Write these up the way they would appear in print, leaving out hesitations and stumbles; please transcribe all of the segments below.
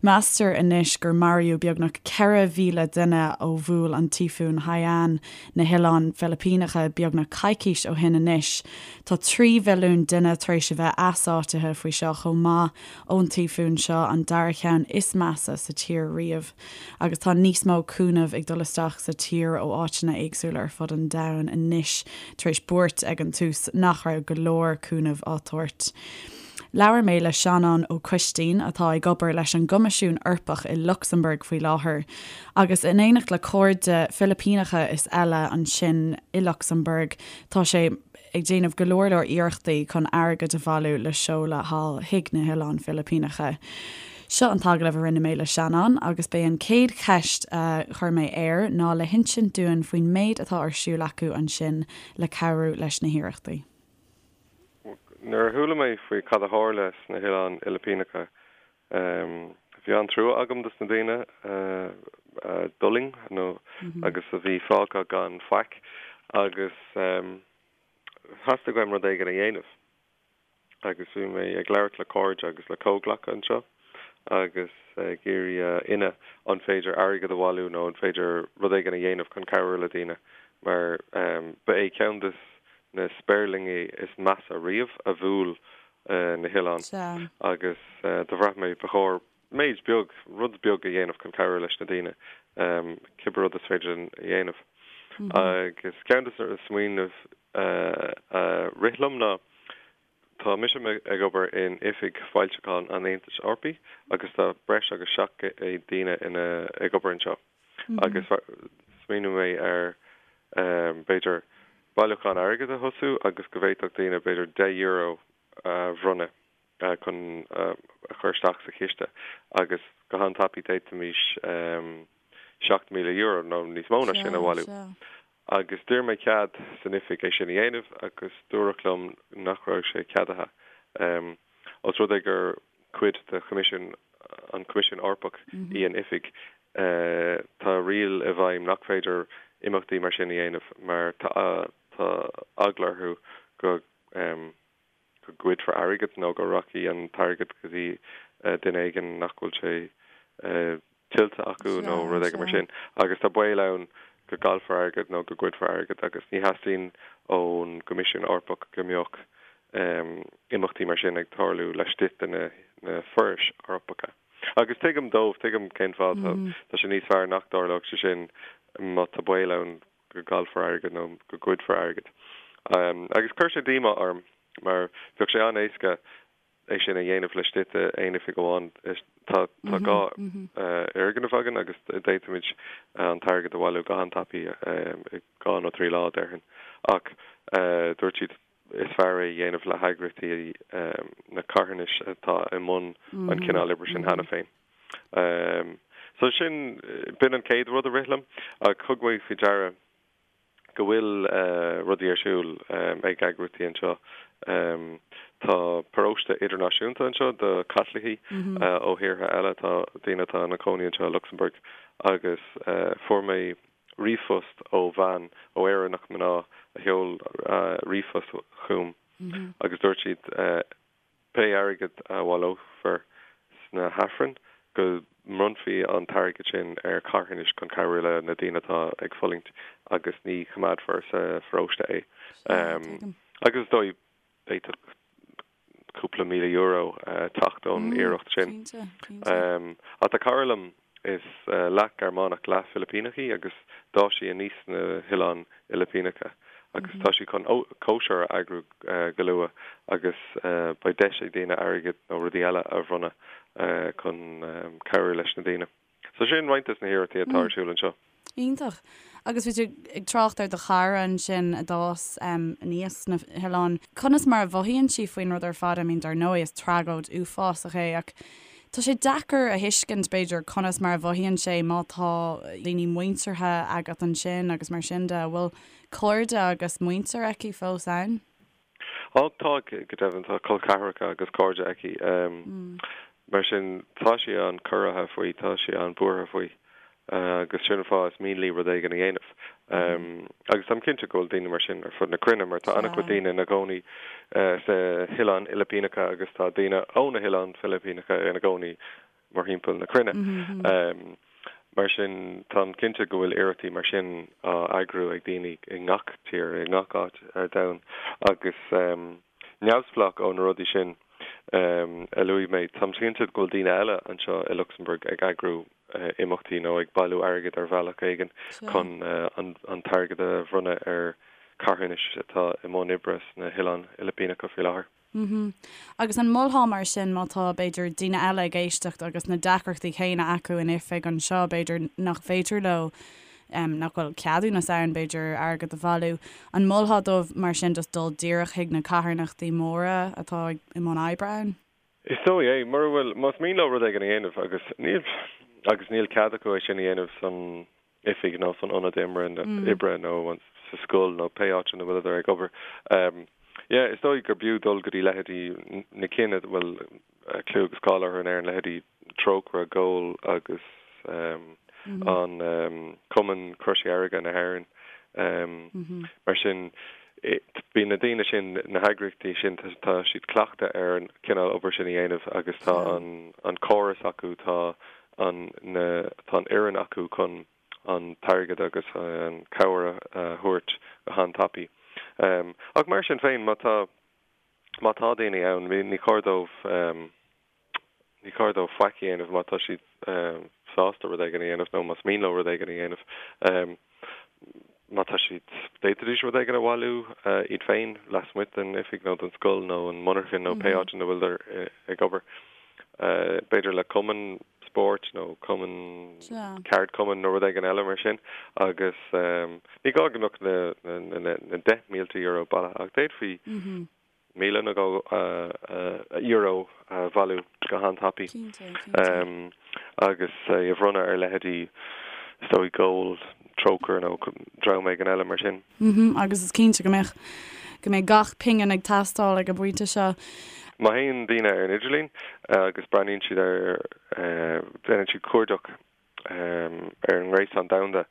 Meastar anois gur maraíodh beagnach 4,000 duine ó bhuail an Tíofún Haiyan na hOileáin Philipíneacha beagnach coicís ó shin anois. Tá 3 mhilliún duine tar éis a bheith easáitithe faoi seo chomh maith ón tíofún seo, an dara ceann is measa sa tír riamh. Agus tá níos mó cúnaimh ag dul isteach sa tír ó áiteanna éagsúla ar fud an domhain anois tar éis buairt ag an tús nach raibh go leor cúnaimh á tabhairt. Labhair mé le Seanán Ó Coistín, atá ag obair leis an gCoimisiún Eorpach i Lucsamburg faoi láthair, agus in éineacht le cairde Filipíneacha is eile ansin i Lucsamburg, tá sé ag déanamh go leor leor iarrachtaí chun airgead a bhailiú le seoladh thall chuig na hOileáin Philipíneacha. Seo an t-agallamh a rinne mé le Seanán agus b'é an chéad cheist a chuir mé air ná le hinsint dúinn faoin méid atá ar siúl acu ansin le cabhrú leis na hiarrachtaí. Nuair a chuala mé faoi cad a tharla sna hOileáin Fhilipíneacha, bhí an-trua agam dos na daoine a d'fhulaing nó agus a bhí fágtha gan faic agus theastaigh uaim rud éigin a dhéanamh. Agus bhí mé ag labhairt le cairde agus le comhghleacaithe anseo agus ag iarraidh a fhionnadh an féidir airgead a bhailiú nó an féidir rud éigin a dhéanamh chun cabhrú le daoine mar ba é ceann des na spéirlingí is measa riamh a bhuail na hoileáin agus do bhraith mé ba chóir méid beag, rud beag a dhéanamh chun cabhrú leis na daoine, cibé rud is féidir linn a dhéanamh. Agus ceann de na smaoineamh a rith liom ná, tá mise ag obair in Oifig Foilseacháin an Aontais Eorpaigh agus tá breis agus 700 daoine ina ag obair anseo. Agus smaoinigh mé ar, b'fhéidir, bailiúchán airgid a thosú agus go bhféadfadh daoine b'fhéidir €10 a bhronnadh chun a chur isteach sa chiste agus go han-tapaidh d'fhéadfaimis €7,000 nó níos mó ná sin a bhailiú. Agus d'iarr mé cead san oifig é sin a dhéanamh agus dúradh liom nach raibh sé ceadaithe. Os rud é gur cuid de Choimisiún, an Coimisiún Eorpach í an oifig, tá riail i bhfeidhm nach féidir imeachtaí mar sin a dhéanamh mar tá eagla orthu go go ggoidfear airgead nó go rachaidh an t-airgead go dtí duine éigin nach bhfuil sé tuillte acu nó rud éigin mar sin. Agus tá baol ann go gcaillfear airgead nó go ggoidfear airgead agus ní theastaíonn ón gCoimisiún Eorpach go mbeadh imeachtaí mar sin ag tarlú laistigh de na forais Eorpacha. Agus tuigim dóibh, tuigim cén fáth, tá sé níos fearr nach dtarlódh sé sin má tá baol ann go gcaillfear airgead nó go ggoidfear airgead. Agus chuir sé díomá orm mar bheadh sé an-éasca é sin a dhéanamh laistigh d'aon oifig amháin. Tá tá 2 fhoirgneamh againn agus d'fhéadfaimid an t-airgead a bhailiú go han-tapaidh i 2 nó 3 lá, déarfainn. Ach dúirt siad is fearr é a dhéanamh le heagraíochtaí na carthanais atá i mbun an cineál oibre sin cheana féin. So sin, b'in an chéad rud a rith liom ach thug mé faoi deara go bhfuil rudaí ar siúl ag eagraíochtaí anseo. Tá paróiste idirnáisiúnta anseo do Chaitlicigh ó thíortha eile, tá daoine atá ina cónaí anseo i Lucsamburg agus fuair mé ríomhphost ó bhean, ó Éireannach mná a sheol ríomhphost chugam agus dúirt siad pé airgead a bhaileofar sna hAifrinn go mbronnfaí an t-airgead sin ar charthanais chun cabhrú le na daoine atá ag fulaingt agus ní choimeádfar sa pharóiste é. Agus is dóigh, d'fhéadfadh cúpla €1,000 teacht ón iarracht sin. Ach tá cara liom, is leath Gearmánach, leath Filipíneach í agus d'fhás sí aníos sna hOileáin Fhilipíneacha agus tá sí chun cóisir a eagrú go luath agus beidh deis ag daoine airgead nó rudaí eile a bhronnadh chun cabhrú leis na daoine. So sin roinnt des na hiarrachtaí atá ar siúl anseo. Iontach. Agus bhí tú ag trácht ar do chara ansin a d'fhás aníos sna hoileáin. Conas mar a mhothaíonn sí faoin rud ar fad? I mean, dar ndóigh, is tragóid uafásach é ach tá sé deacair a thuiscint, b'fhéidir, conas mar a mhothaíonn sé má tá daoine muinteartha agat ansin agus mar sin de. An bhfuil cairde agus muintir aici fós ann? Á, tá, go deimhin, tá col ceathracha agus cairde aici. Mar sin, tá sí an-chorraithe faoi, tá sí an-bhuartha faoi agus sin an fáth is mian léi rud éigin a dhéanamh. Agus táim cinnte go bhfuil daoine mar sin ar fud na cruinne mar tá an-chuid daoine ina gcónaí sna hOileáin Fhilipíneacha agus tá daoine ó na hOileáin Philipíneacha ina gcónaí. mórthimpeall na cruinne. Mar sin, táim cinnte go bhfuil iarrachtaí mar sin á eagrú ag daoine i ngach tír, i ngach áit ar domhan agus neamhspleách ó na rudaí sin a luaigh mé, táim cinnte go bhfuil daoine eile anseo i Lucsamburg ag eagrú imeachtaí nó ag bailiú airgid ar bhealach éigin chun an t-airgead a bhronnadh ar carthanais atá i mbun oibre sna hOileáin Fhilipíneacha faoi láthair. Mhm. Agus an molfá mar sin má tá, b'fhéidir, daoine eile ag éisteacht agus na deacrachtaí céanna acu in oifig anseo, b'fhéidir nach féidir leo, nach bhfuil ceadúnas ann, b'fhéidir, airgead a bhailiú, an molfá dóibh mar sin just dul díreach chuig na carthanachtaí móra atá i mbun oibre ann? Is dóigh é. Mura bhfuil, más mian leo rud éigin a dhéanamh agus níl, agus níl cead acu é sin a dhéanamh san oifig nó san ionad oibre nó sa scoil nó pé áit ina bhfuileadar ag obair. Yeah, is dóigh gur b'fhiú dul go dtí leithéidí na cinn a bhfuil clú agus cáil orthu in Éirinn, leithéidí Trócaire, Goal agus an Cumann Croise Dheirge na hÉireann. Mar sin, bíonn na daoine sin, na heagraíochtaí sin, tá siad cleachta ar an cineál obair sin a dhéanamh agus tá an córas acu, tá an na tá an fhoireann acu chun an t-airgead agus an chabhair a thabhairt go han-tapaidh. Ach mar sin féin, má tá má tá daoine ann, ní chóir dóibh ní chóir dóibh faic a dhéanamh má tá siad sásta rud éigin a dhéanamh nó más mian leo rud éigin a dhéanamh. Má tá siad, d'fhéadfaidís rud éigin a bhailiú iad féin lasmuigh den oifig nó den scoil nó an monarchan nó pé áit ina bhfuileadar ag obair. B'fhéidir le cumann spóirt nó cumann ceardchumainn nó rud éigin eile mar sin agus ní gá go mbeadh na 10,000 euro bailithe ach d'fhéadfaí 1,000 nó dhó euro a bhailiú go han-tapaidh agus é a bhronnadh ar leithéidí, is dóigh, Goal, Trócaire nó dream éigin eile mar sin. Agus is cinnte go mbeadh, go mbeidh gach pingin ag teastáil ag an bpointe seo. Má théann daoine ar an idirlíon agus breathnaíonn siad ar, déanann siad cuardach ar an ngréasán domhanda.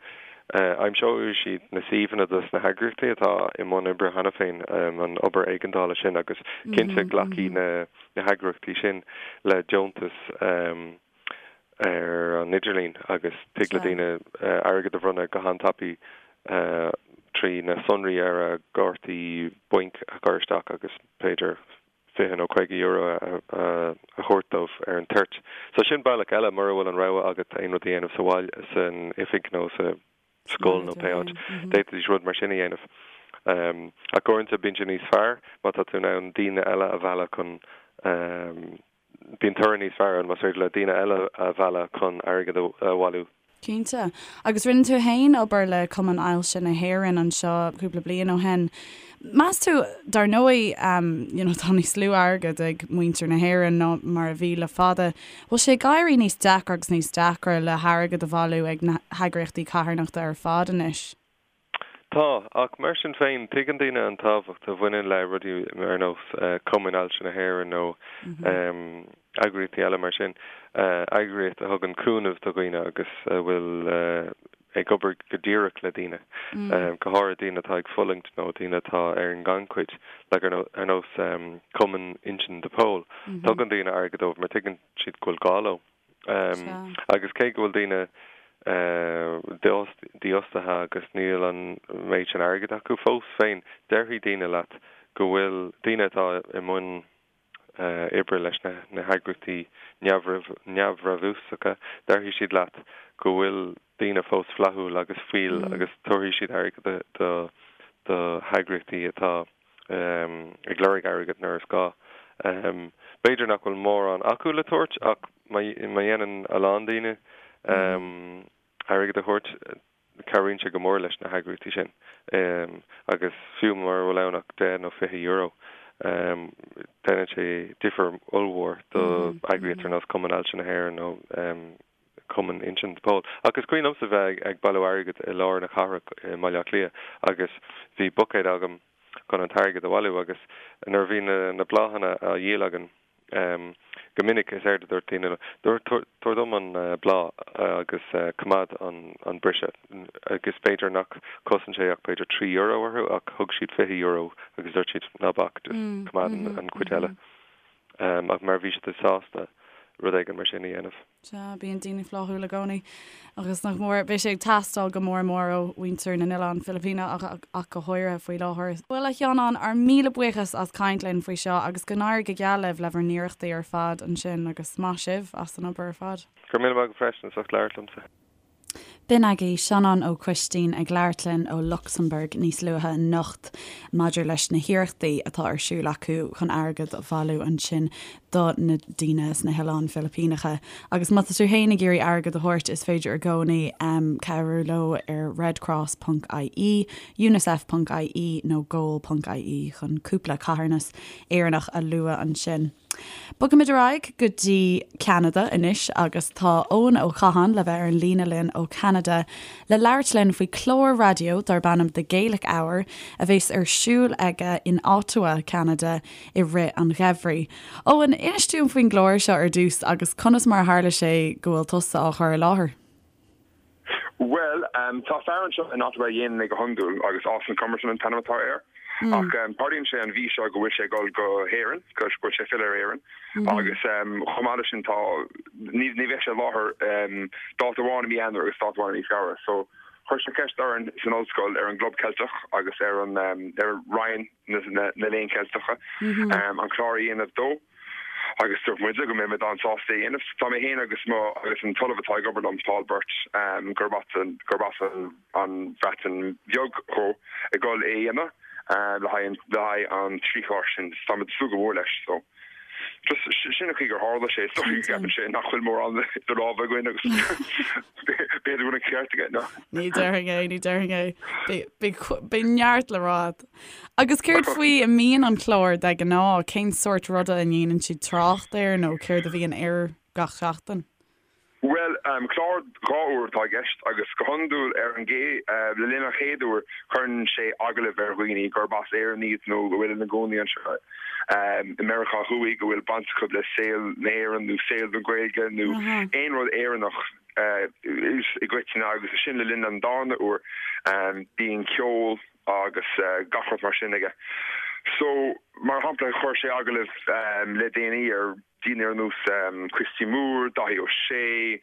Aimseoidh siad na suíomhanna dos na heagraíochtaí atá i mbun oibre cheana féin, an obair éigeandála sin, agus cinnte glacfaidh na heagraíochtaí sin le deontais ar an idirlíon agus tig le daoine airgead a bhronnadh go han-tapaidh trí na sonraí ar a gcártaí bainc a chur isteach agus b'fhéidir €20 nó €50 a thabhairt dóibh ar an toirt. So sin bealach eile, mura bhfuil an rogha agat aon rud a dhéanamh sa bhaile, san oifig nó sa scoil nó pé áit, d'fhéadfaidís rud mar sin a dhéanamh. Ach uaireanta bíonn sé níos fearr má tá tú in ann daoine eile a mhealladh chun, bíonn toradh níos fearr ann más féidir le daoine eile a mhealladh chun airgead a bhailiú. Cinnte. Agus rinne tú fhéin obair le Cumann Ailse na hÉireann anseo cúpla bliain ó shin. Meas tú, dar ndóigh, you know, tá níos lú airgid ag muintir na hÉireann ná mar a bhí le fada, bhfuil sé ag éirí níos deacra agus níos deacra le hairgead a bhailiú ag na heagraíochtaí carthanachta ar fad anois? Tá, ach mar sin féin, tuigeann daoine an tábhacht a bhaineann le rudaí ar nós Cumann Ailse na hÉireann nó eagraíochtaí eile mar sin, eagraíocht a thugann cúnamh do dhaoine agus a bhfuil ag obair go díreach le daoine, go háirithe daoine atá ag fulaingt nó daoine atá ar an ngannchuid, like ar nós Cumann Uinseann de Pól. Tugann daoine airgead dóibh mar tuigeann siad go bhfuil gá leo. Agus cé go bhfuil daoine dífhostaithe agus níl an méid sin airgid acu fós féin, déarfaidh daoine leat go bhfuil daoine atá i mbun oibre leis na heagraíochtaí neamhbhrabúsacha, déarfaidh siad leat go bhfuil daoine fós flaithiúil agus fial agus tabharfaidh siad airgead do heagraíochtaí atá ag lorg airgid nuair is gá. B'fhéidir nach bhfuil mórán acu le tabhairt ach má dhéanann a lán daoine airgead a thabhairt, cabhraíonn sé go mór leis na heagraíochtaí sin. Agus fiú mura bhfuil ann ach €10 nó €20, déanann sé difear ollmhór do eagraíocht ar nós Cumann Ailse na hÉireann nó Cumann Uinseann de Pól. Ach is cuimhin liomsa bheith ag bailiú airgid i lár na cathrach i mBaile Átha Cliath agus bhí buicéad agam chun an t-airgead a bhailiú agus nuair a bhí na bláthanna á dhíol againn go minic is éard a dúirt daoine ná tabhair dom an bláth agus coimeád an briseadh agus b'fhéidir nach chosain sé ach b'fhéidir €3 orthu ach thug siad €20 agus dúirt siad ná bac just coimeád an chuid eile. Ach mar bhí siad sásta. rud éigin mar sin a dhéanamh. Sea, bíonn daoine flaithiúil i gcónaí agus nach mór, beidh sé ag teastáil go mór mór ó mhuintir na nOileán Filipíneach ach go háirithe faoi láthair. Bhuel, a Sheanáin, ár míle buíochas as caint linn faoi seo agus go n-éirí go geal libh le bhur n-iarrachtaí ar fad ansin agus maith sibh as an obair ar fad. Go raibh míle maith agat freisin as ucht labhairt liomsa. B'in agaibh Seanán Ó Coistín ag labhairt linn ó Lucsamburg níos luaithe anocht maidir leis na hiarrachtaí atá ar siúl acu chun airgead a bhailiú ansin do na daoine sna hOileáin Philipíneacha. Agus má tá tú féin ag iarraidh airgead a thabhairt is féidir i gcónaí cabhrú leo ar redcross ponc ie, unicef ponc ie nó goal ponc ie chun cúpla carthanas Éireannach a lua ansin. Bogfaimid ar aghaidh go dtí Ceanada anois agus tá Eoin Ó Catháin le bheith ar an líne linn ó Cheanada le labhairt linn faoi chlár raidió darb ainm The Gaelic Hour a bheas ar siúl aige in Ottawa, Ceanada i rith an gheimhridh. Eoin, inis dúinn faoin gclár seo ar dtús agus conas mar a tharla sé go bhfuil tusa á chur i láthair? Bhuel, tá fear anseo in Ottawa a dhéanann é go hiondúil agus Austin Comerton an t-ainm atá air. Ach tarlaíonn sé an mhí seo go bhfuil sé ag dul go hÉirinn, go bhfuil sé ag filleadh ar Éirinn agus chomh maith leis sin tá, ní bheidh sé i láthair dáta amháin i mí Eanáir agus dáta amháin i mí Feabhra. So chuir sé ceist orainn san ollscoil, ar an gClub Ceilteach agus ar an, ar Roinn na Léann Ceilteacha an clár a dhéanamh dó. Agus dúirt muide go mbeidh muid an-sásta é a dhéanamh. Tá mé féin agus mo agus an t-ollamh atá ag obair liom, Paul Burt, gurb as an gurb as an an Bhreatain Bheag dhó, ag dul é a dhéanamh le haghaidh le haghaidh an trí chlár sin. Tá muid ag súil go mór leis. So just sin an chaoi gur tharla sé. Is dóigh go gceapann sé nach bhfuil mórán idir lámha againn agus b'fhéidir go bhfuil an ceart aige. No. Ní déarfainn é, ní déarfainn é. Beidh beidh neart le rá agat. Agus céard faoi a mbíonn an clár de ghnáth? Cén sórt ruda a ndéanann siad trácht air nó céard a bhíonn air gach seachtain? Bhuel, clár 2 uair atá i gceist agus go hiondúil ar an gcé, le linn an chéad uair cuireann sé agallamh ar dhaoine gurb as Éirinn iad nó a bhfuil ina gcónaí anseo i Meiriceá Thuaidh, go bhfuil baint acu le saol na hÉireann nó saol na Gaeilge nó aon rud Éireannach i gcoitinne agus ansin le linn an darna uair bíonn ceol, agus gach rud mar sin aige. So, mar shampla, chuir sé agallamh le déanaí ar daoine ar nós Christy Moore, Dáithí Ó Sé,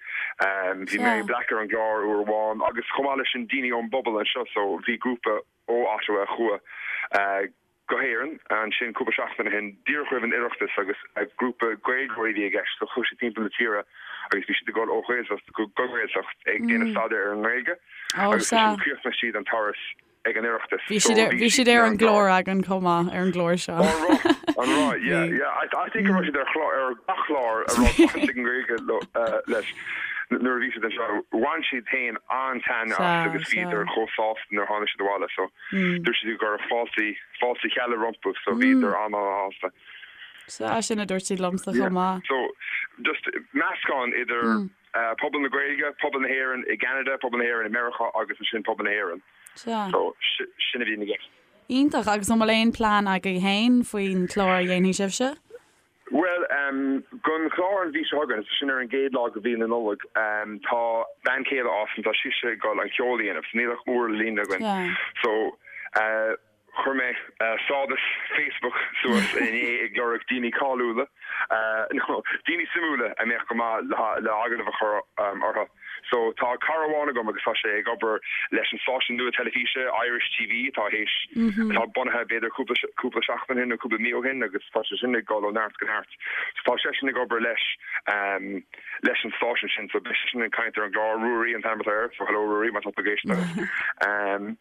bhí Mary Black ar an gclár uair amháin agus chomh maith leis sin daoine ón bpobal anseo. So, bhí grúpa ó Ottawa a chuaigh go hÉirinn ansin cúpla seachtain ó shin, díreach roimh an Oireachtas agus grúpa Gaeilgeoirí a bhí i gceist. So chuaigh siad timpeall na tíre agus bhí siad ag dul ó Ghaeltacht go Gaeltacht ag déanamh staidéar ar an nGaeilge agus ansin chríochnaigh siad an turas ag an Oireachtas. Bhí siad ar, bhí siad ar an gclár againn chomh maith, ar an gclár seo. An raibh? An raibh? Yeah, yeah. I, I think go raibh siad ar chlár, ar gach clár a raibh baint ag an nGaeilge leis nuair a bhí siad anseo. Bhain siad féin an-taitneamh as agus bhíodar chomh sásta nuair a tháinig siad abhaile. So Dúirt siad go raibh fáilte, fáilte chealla rompu so bhíodar an-an-shásta. Sea, sin a dúirt siad liomsa chomh maith. So, just meascán idir pobal na Gaeilge, pobal na hÉireann i gCeanada, pobal na hÉireann i Meiriceá agus ansin pobal na hÉireann. Sea. So, sin a bhí i gceist. Iontach, agus an bhfuil aon plean agaibh féin faoin chlár a dhéanfaidh sibhse? Bhuel, don chlár an mhí seo chugainn, sin ar an gcéad lá de mhí na Nollag, tá bean chéile Austin, tá sise ag dul an ceol a dhéanamh, so níl ach uair le líonadh againn. So, chuir mé stádas Facebook suas inné ag lorg daoine cáiliúla, nó daoine suimiúla a mbeadh go maith le agallamh a chur orthu. So tá cara amháin agam agus tá sé ag obair leis an stáisiún nua teilifíse Irish TV atá théis, atá bunaithe b'fhéidir cúpla, cúpla seachtain ó shin nó cúpla mí ó shin agus tá sé sin ag dul ó neart go neart. So tá seisean ag obair leis, leis an stáisiún sin so beidh seisean ag caint ar an gclár, Ruairí an t-ainm atá air, so hello Ruairí má tá tú ag éisteacht.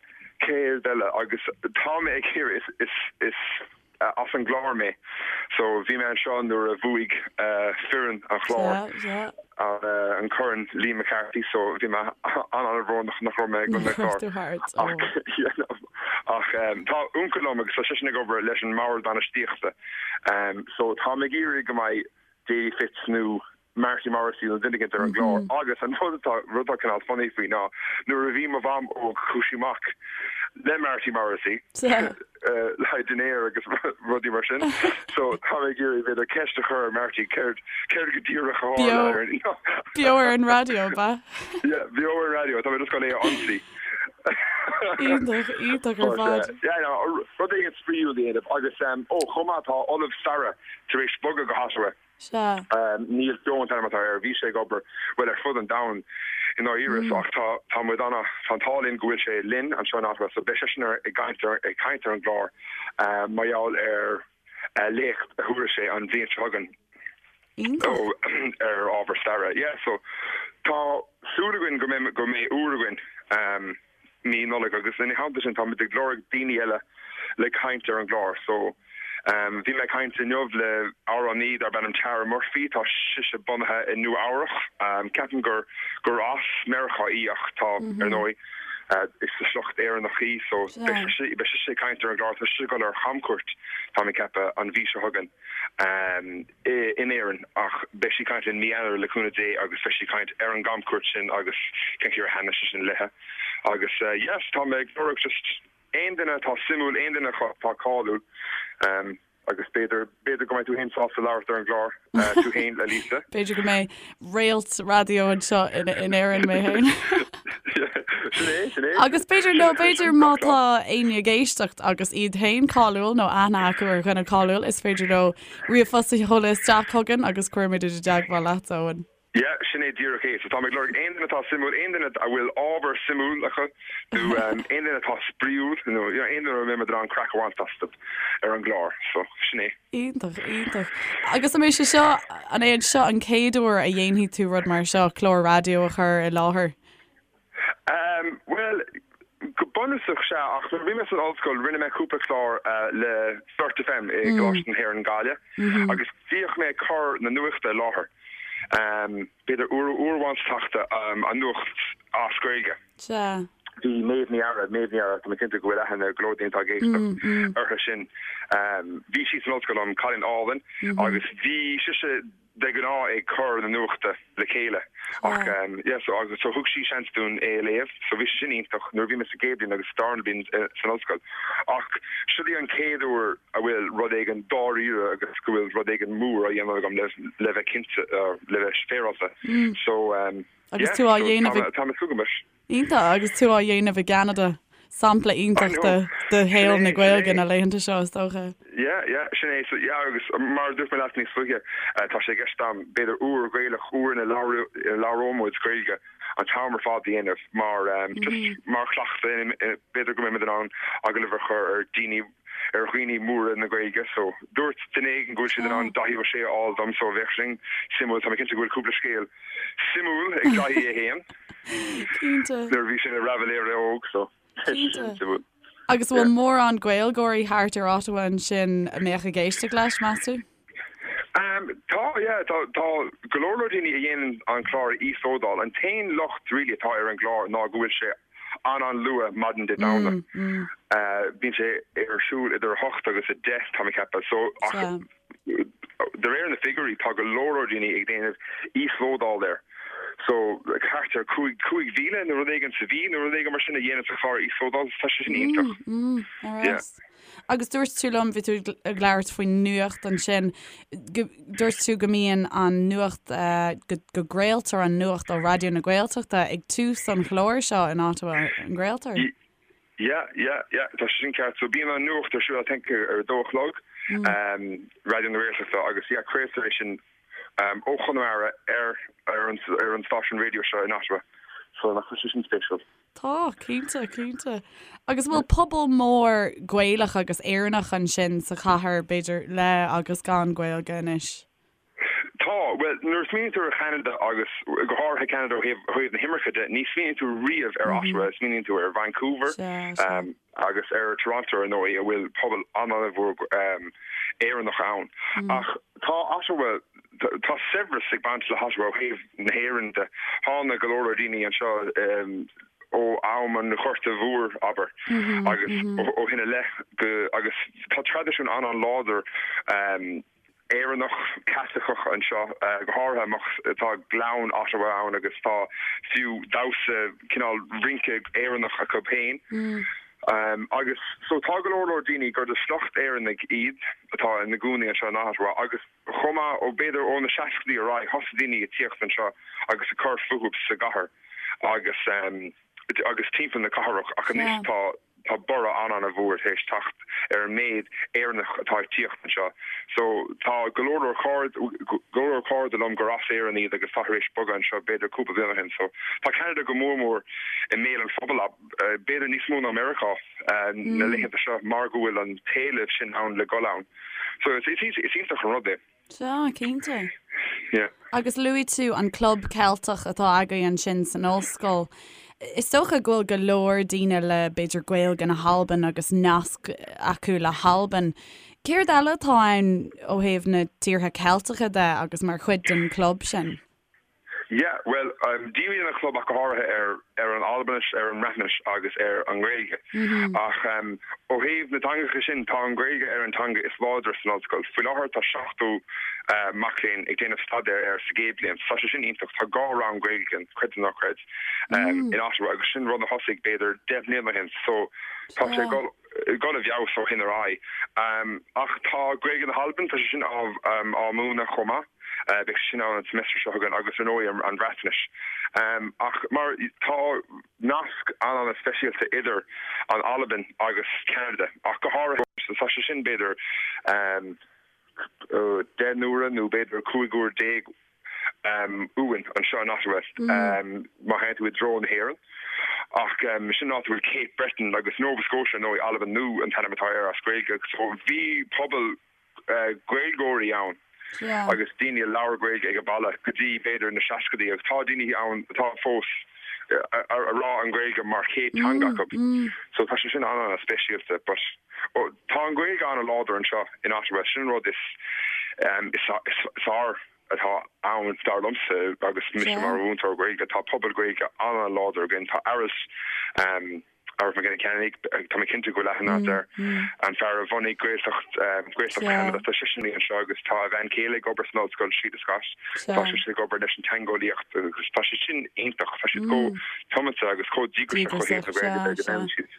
Céard eile agus tá mé ag iarraidh, is, is, is, as an gClár mé so bhí mé anseo nuair a bhuaigh foireann an Chláir an corn Liam McCarthy so bhí mé an-an-bhrónach nach raibh mé ag an gclár ach tá uncail liom agus tá seisean ag obair leis an mbord bainistíochta so tá mé ag iarraidh go mbeidh Davy Fitz nó Marty Morrissey nó duine éicint ar an gclár agus an rud atá rud atá cineál funny faoi ná nuair a bhí mo mham óg chuaigh sí amach le Marty Morrissey le haghaidh dinnéar agus rudaí mar sin so tá mé ag iarraidh b'fhéidir ceist a chur ar Marty céard céard go díreach a tharla ar an Beo ar an raidió, ab ea? Yeah, beo ar an raidió, tá mé just gan é a ionsaí. Iontach, iontach ar fad. Yeah, no, rud éigin spraíúil a dhéanamh agus ó chomh maith tá Ollamh Staire tar éis bogadh go hOttawa. Sea. Neil Keogh an t-ainm atá air. Bhí sé ag obair, bhuel, ar fud an domhain i ndáiríre so ach tá, tá muid ana, tá an t-ádh linn go bhfuil sé linn anseo in Ottawa so beidh seisean ar, ag caint ar, ag caint ar an gclár mar gheall ar léacht a thabharfaidh sé an bhliain seo chugainn Iontach. ar ábhar staire. Yeah, so tá súil againn go mbeidh, go mbeidh uair againn. mí Nollag agus ina theannta sin táimid ag lorg daoine eile le caint ar an gclár so bhí mé ag caint inniu le amhránaí darb ainm Tara Murphy, tá sise bunaithe i Nua Eabhrach, ceapaim gur gur as Meiriceá í ach tá ar ndóigh is de shliocht Éireannach í so beidh sise ag caint ar an gclár, tá sise ag dul ar chamcuairt tá mé ag ceapadh an mhí seo chugainn. in Éirinn ach beidh sí ag caint linn mí Eanáir le cúnamh Dé agus beidh sí ag caint ar an gcamchuairt sin agus cén chaoi ar thaitnigh sé sin léithe agus yes tá mé ag lorg just aon duine atá suimiúil, aon duine atá cáiliúil agus b'fhéidir, b'fhéidir go mbeidh tú féin sásta labhairt ar an gclár tú féin a Lisa. B'fhéidir go mbeidh réalt raidió anseo in Éirinn mé féin. Sin é, sin é. Agus b'fhéidir nó b'fhéidir má tá éinne ag éisteacht agus iad féin cáiliúil nó aithne acu ar dhuine cáiliúil, is féidir leo ríomhphost a sheoladh isteach chugainn agus cuirfimid i dteagmháil leat, Eoin. Yeah, sin é díreach é. So táim ag lorg aon duine atá suimiúil, aon duine a bhfuil ábhar suimiúil acu nó aon duine atá spraíúil nó you know aon duine a mbeidh muid in ann craic a bhaint astu ar an gclár. So sin é. Iontach, iontach. Agus an mbeidh sé seo, an é seo an chéad uair a dhéanfaidh tú rud mar seo, clár raidió a chur i láthair? Um, bhuel, go bunúsach sea, ach nuair a bhí mé san ollscoil rinne mé cúpla clár le Flirt FM i gColáiste na hÉireann Gaillimh agus bhíodh mé ag cur na nuachta i láthair, b'fhéidir uair, uair amháin sa tseachtain, an nuacht as Gaeilge. Sea. Bhí Méabh Ní Eadhra, Méabh Ní Eadhra, tá mé cinnte go bhfuil aithne ag go leor daoine atá ag éisteacht uirthi sin. Bhí sí san ollscoil liom, cailín álainn, agus bhí sise de ghnáth ag cur na nuachta le chéile ach yeah so agus so thug sí seans dúinn é a léamh so bhí sé sin iontach nuair a bhí mé sa gcéad bhliain agus sa darna bliain san ollscoil ach seo í an chéad uair a bhfuil rud éigin dáiríre agus go bhfuil rud éigin mór á dhéanamh agam le le bheith cinnte le bheith féaráilte so Agus yeah tú á dhéanamh ag tá mé ag súil go mór. Iontach, agus tú á dhéanamh i gCeanada. Sampla iontach de de shaol na Gaeilge na laethanta seo, is dócha. Yeah, yeah, sin é. So, yeah, agus mar a dúirt mé leat níos luaithe, tá sé i gceist agam b'fhéidir uair Ghaelach, uair ina labhróidh muid Gaeilge an t-am ar fad a dhéanamh mar just mar chleachtadh, b'fhéidir go mbeidh muid in ann agallamh a chur ar daoine ar dhaoine móra na Gaeilge so dúirt duine éigin go bhfuil siad in ann Daithí Ó Sé a fháil dom so bheadh sin suimiúil. Tá mé cinnte go bhfuil cúpla scéal suimiúil ag Daithí é féin. Cinnte. Nuair a bhí sé ina raibiléir óg so sin suimiúil. Agus an bhfuil mórán Gaeilgeoirí thart ar Ottawa ansin a mbeadh ag éisteacht leis, meas tú? Tá, yeah, tá, tá go leor leor daoine a dhéanann an clár a íoslódáil. An t-aon locht really atá ar an gclár ná go bhfuil sé an-an-luath maidin Dé Domhnaigh. Bíonn sé ar siúl idir 8 agus 10, tá mé ag ceapadh. So, ach de réir na figiúirí, tá go leor leor daoine ag déanamh íoslódáil air. So, thart ar 5,000 nó rud éigin sa mhí nó rud éigin mar sin a dhéanann an clár a íoslódáil. Tá sé sin iontach. Yeah. Agus dúirt tú liom, bhí tú ag labhairt faoin nuacht ansin, dúirt tú go mbíonn an nuacht, go gcraoltar an nuacht ó Raidió na Gaeltachta ag tús an chláir seo in Ottawa, an gcraoltar? Yeah, yeah, yeah, tá sé sin ceart. So bíonn an nuacht ar siúl I think ar a dó a chlog, Raidió na Gaeltachta agus yeah, craoltar é sin ó Chonamara ar ar an stáisiún raidió seo in Ottawa. So nach bhfuil sé sin spéisiúil? Tá, cinnte, cinnte. Agus an bhfuil pobal mór Gaelach agus Éireannach ansin sa chathair, b'fhéidir, le agus gan Gaeilge anois? Tá. Bhuel, nuair a smaoiníonn tú ar Cheanada agus go háirithe Ceanada ó thaobh na himirce de, ní smaoiníonn tú riamh ar Ottawa, smaoiníonn tú ar Vancouver agus ar Toronto ar ndóigh, a bhfuil pobal an-an-mhór Éireannach ann. Ach tá Ottawa, tá saibhreas ag baint le hOttawa ó thaobh na hÉireann de. Tháinig go leor leor daoine anseo ó am an Ghorta Mhóir, abair, agus ó shin i leith agus tá traidisiún an-an-láidir Éireannach, Caitliceach anseo, go háirithe amach, tá Gleann Ottawa ann agus tá fiú damhsa, cineál rince Éireannach acu féin. Agus so tá go leor leor daoine gur de shliocht Éireannaigh iad atá ina gcónaí anseo in Ottawa agus chomh maith ó b'fhéidir ó na seascaidí ar aghaidh thosaigh daoine ag tíocht anseo agus ag cur fúthu sa gcathair agus agus timpeall na cathrach ach anois tá. tá borradh an-an-mhór tar éis teacht ar an méid Éireannach atá ag tíocht anseo. So tá go leor leor cairde, go leor leor cairde liom gur as Éirinn iad agus atá tar éis bogadh anseo b'fhéidir cúpla bliain ó shin. So tá Ceanada go mór mór i mbéal an phobail, b'fhéidir níos mó ná Meiriceá na laethanta seo mar go bhfuil an t-éileamh sin ann le dhul ann. So is iontach an rud é. Sea, cinnte. Yeah. Agus luaigh tú an Club Ceilteach atá agaibh ansin san ollscoil. Is dócha go bhfuil go leor daoine le, b'fhéidir, Gaeilge na hAlban agus nasc acu le hAlbain. Céard eile atá ann ó thaobh na tíortha Ceilteacha de agus mar chuid den chlub sin? Yeah, bhuel, díríonn an chlub ach go háirithe ar ar an Albainis, ar an mBreatnais agus ar an nGaeilge. Ach ó thaobh na dteangacha sin, tá an Ghaeilge ar an teanga is láidre san ollscoil. Faoi láthair tá 70 mac léinn ag déanamh staidéir air sa gcéad bhliain. Tá sé sin iontach. Tá 2 rang Gaeilge againn, creid nó ná creid, in Ottawa agus sin rud a thosaigh b'fhéidir 10 mbliana ó shin. So tá sé ag dul dul i bhfeabhas ó shin ar aghaidh. Ach tá Gaeilge na hAlban, tá sé sin á múineadh chomh maith. Beidh sé sin ann an semester seo chugainn agus ar ndóigh an Bhreatnais. Ach mar tá nasc an-an-speisialta idir an Albain agus Ceanada ach go háirithe tá sé sin b'fhéidir 10 n-uaire nó b'fhéidir 15 uair uainn anseo in Ottawa má théann tú i dtreo na hÉireann. Ach sin an áit a bhfuil Cape Breton agus Nova Scotia ar ndóigh, Albain Nua an t-ainm atá air as Gaeilge. So bhí pobal Gaeilgeoirí ann agus daoine a labhair Gaeilge ag an baile go dtí b'fhéidir na seascaidí agus tá daoine ann atá fós a rá an Ghaeilge mar chéad teanga acu. So tá sé sin an-an-speisialta but tá an Ghaeilge an-láidir anseo in Ottawa, sin an rud is is fearr atá ann dar liomsa agus mise mar mhúinteoir Gaeilge. Tá pobal Gaeilge an-an-láidir againn, tá Aralt Aralt Mac Giolla Cheannaigh, tá mé cinnte go bhfuil aithne agat air, an fear a bhunaigh Gaeltacht Gaeltacht Cheanada, tá seisean anseo agus tá a bhean chéile ag obair san ollscoil, Síle Scott, tá sise ag obair leis an teangeolaíocht agus tá sé sin iontach, tá siad chomh tiomanta agus chomh díograiseach ó thaobh na Gaeilge de go ndéanann siad.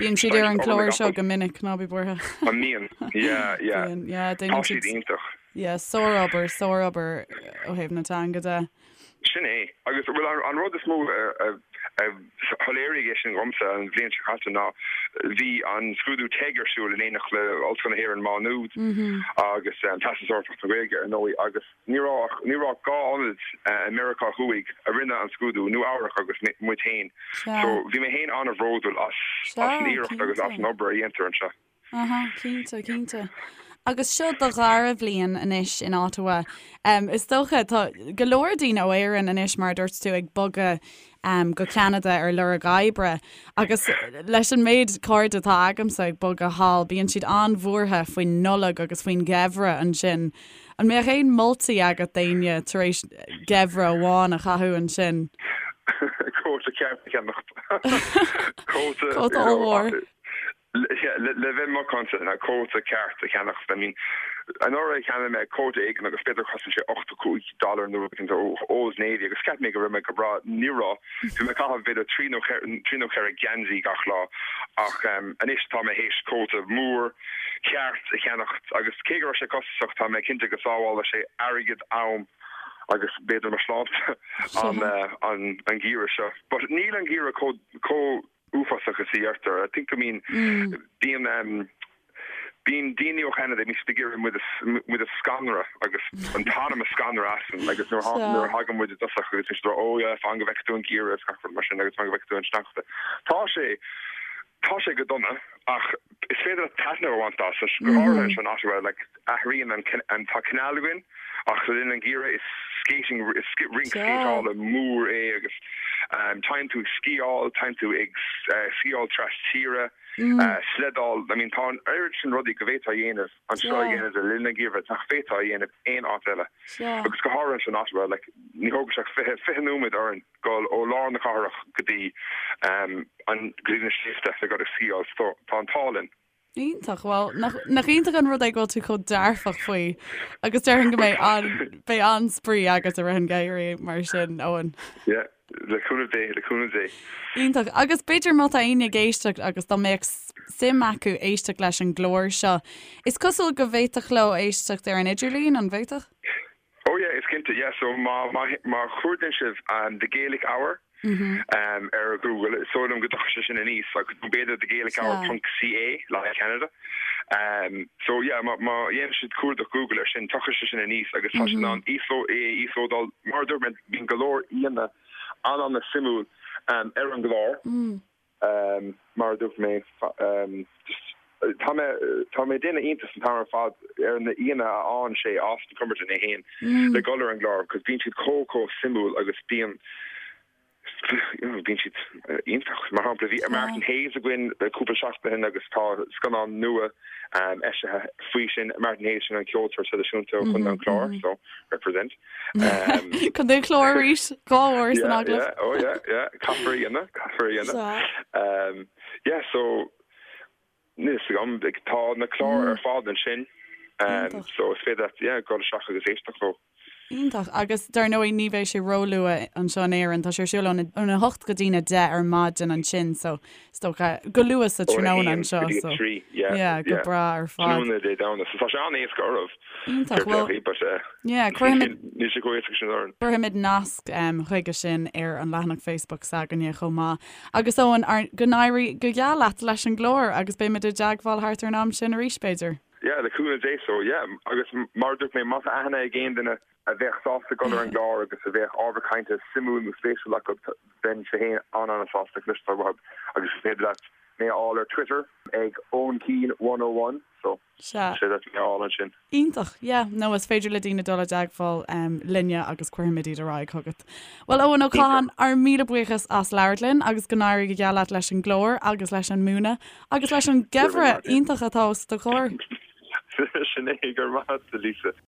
Bíonn siad ar an gclár seo go minic, ná bí buartha. An mbíonn? Yeah, yeah. Bíonn, yeah, Tá siad iontach. Yeah, sárobair, sárobair ó thaobh na teanga de. Sin é. Agus bhuel an rud is mó a shoiléirigh é sin dhomsa an bhliain seo caite ná bhí an scrúdú TEG ar siúl in éineacht le Ollscoil na hÉireann Má Nuad agus Teastas Eorpach na Gaeilge ar ndóigh agus ní raibh ach ní raibh ach 2 ionad i Meiriceá Thuaidh a rinne an scrúdú, Nua Eabhrac agus muid féin. So bhí mé féin an-bhródúil as as an iarracht agus as an obair a dhéantar anseo. Aha, cinnte, cinnte. Agus seo do dhara bhliain anois in Ottawa. Um, is dócha, tá go leor daoine ó Éirinn anois, mar a dúirt tú, ag bogadh um, go Ceanada ar lorg oibre. Agus leis an méid cairde atá agamsa ag bogadh thall, bíonn siad an-bhuartha faoin Nollaig agus faoin gheimhreadh ansin. An mbeadh aon moltaí agat d'éinne tar éis geimhreadh amháin a chaitheamh ansin? Cóta ceart a cheannacht. Cóta Cóta ollmhór. Le bheith macánta, ná cóta ceart a cheannacht. I mean, anuraidh cheannaigh mé cóta éigin agus b'fhéidir chosain sé 85 dollar nó rud éigin ó Old Navy agus cheap mé go raibh mé go breá. Ní raibh. Bhí mé ag caitheamh b'fhéidir trí nó trí nó cheithre geansaí gach lá ach anois tá mé théis cóta mór ceart a cheannacht agus cé go raibh sé costasach tá mé cinnte go sábhálfaidh sé airgead, am agus b'fhéidir mo shláinte an an geimhreadh seo. But níl an geimhreadh chomh chomh uafásach is a deirtear. I think I mean bíonn um bíonn daoine ó Cheanada bíonn siad ag iarraidh muid a muid a scanradh agus an t-anam a scanradh asainn agus nuair a nuair a thagann muid i dtosach agus bíonn siad ag rá oh yeah fan go bhfeicfidh tú an geimhreadh is gach rud mar sin agus fan go bhfeicfidh tú an sneachta. Tá sé tá sé go dona ach is féidir leat taitneamh a bhaint as go háirithe anseo in Ottawa like athraíonn an an tá canal againn ach le linn an gheimhridh is skating is rinc scéiteála mór é agus téann tú ag sciáil, téann tú ag sciáil tras tíre, sleideáil, I mean tá an oiread sin rudaí go bhféadfá a dhéanamh anseo i gCeanada le linn an gheimhridh nach bhféadfá a dhéanamh aon áit eile. Agus go háirithe anseo in Ottawa like ní thógann sé ach 20, 20 nóiméad orainn dul ó lár na cathrach go dtí an go dtí na sléibhte le dul ag sciáil so tá an t-ádh linn. Iontach, bhuel, nach iontach an rud é go bhfuil tú chomh dearfach faoi agus déarfainn go mbeidh an, beidh an-spraoi agat i rith an gheimhridh mar sin, Eoin. Yeah, le cúnamh Dé, le cúnamh Dé. Iontach. Agus b'fhéidir má tá éinne ag éisteacht agus dá mbeadh suim acu éisteacht leis an gclár seo, is cosúil go bhféadfadh leo éisteacht ar an idirlíon, an bhféadfadh? Oh yeah, is cinnte, yeah, so má, má, má chuardaíonn sibh The Gaelic Hour. ar Google, is dóigh liom go dtiocfaidh sé sin aníos agus nó b'fhéidir The Gaelic Hour ponc CA le haghaidh Canada. So yeah, má dhéanann siad cuardach Google air sin, tiocfaidh sé sin aníos agus tá siad in ann é a íoslódáil. Mar a dúirt mé, bíonn go leor aíonna an-an-suimiúil ar an gclár. Mar a dúirt mé, just tá mé tá mé ag déanamh iontas an t-am ar fad ar na aíonna a fhaigheann sé, Austin Cumberton é féin, le dhul ar an gclár because bíonn siad chomh chomh suimiúil agus bíonn bíonn siad iontach. Mar shampla bhí Martin Hayes againn cúpla seachtain ó shin agus tá scannán nua eisithe faoi sin, Martin Hayes sin an ceoltóir traidisiúnta ó Chontae an Chláir, so represent. Contae an Chláir arís, 2 uair san agallamh. Yeah, oh yeah, yeah, caithfear a dhéanamh, caithfear a dhéanamh. Yeah, so níl fhios agam, tá na cláir ar fad ansin, so is féidir leat, yeah, dul isteach agus éisteacht leo. Iontach. Agus dar ndóigh ní bheidh sé róluath anseo in Éirinn, tá sé ar siúl óna 8 go dtína 10 ar maidin ansin, so is dócha go luath sa tráthnóna anseo, so yeah, go breá ar fad. Tráthnóna Dé Domhnaigh, so tá sé an-éasca oraibh. Iontach, bhuel, yeah, cuirfimid, níl sé chomh héasca sin orainn. Cuirfimid nasc chuige sin ar an leathanach Facebook s'againne chomh maith. Agus Eoin, go n-éirí go geal leat leis an gclár agus beimid i dteagmháil thart ar an am sin arís, b'fhéidir. Yeah, le cúnamh Dé so, yeah. Agus mar a dúirt mé, má tá aithne ag aon duine a bheadh sásta dul ar an gclár agus a bheadh ábhar cainte suimiúil nó spéisiúil acu, bheinnse féin an-an-sásta cloisteáil uathu. Agus is féidir leat mé a fháil ar Twitter ag Eoin Keane 101, so Sea. is féidir leat mé a fháil ansin. Iontach, yeah. Nó is féidir le daoine dul i dteagmháil linne agus cuirfimid iad ar aghaidh chugat. Bhuel, Eoin Ó Catháin, ár míle buíochas as labhairt linn agus go n-éirí go geal leat leis an gclár agus leis an múineadh agus leis an geimhreadh iontach atá os do chomhair. Sin é, go raibh maith agat, Lisa.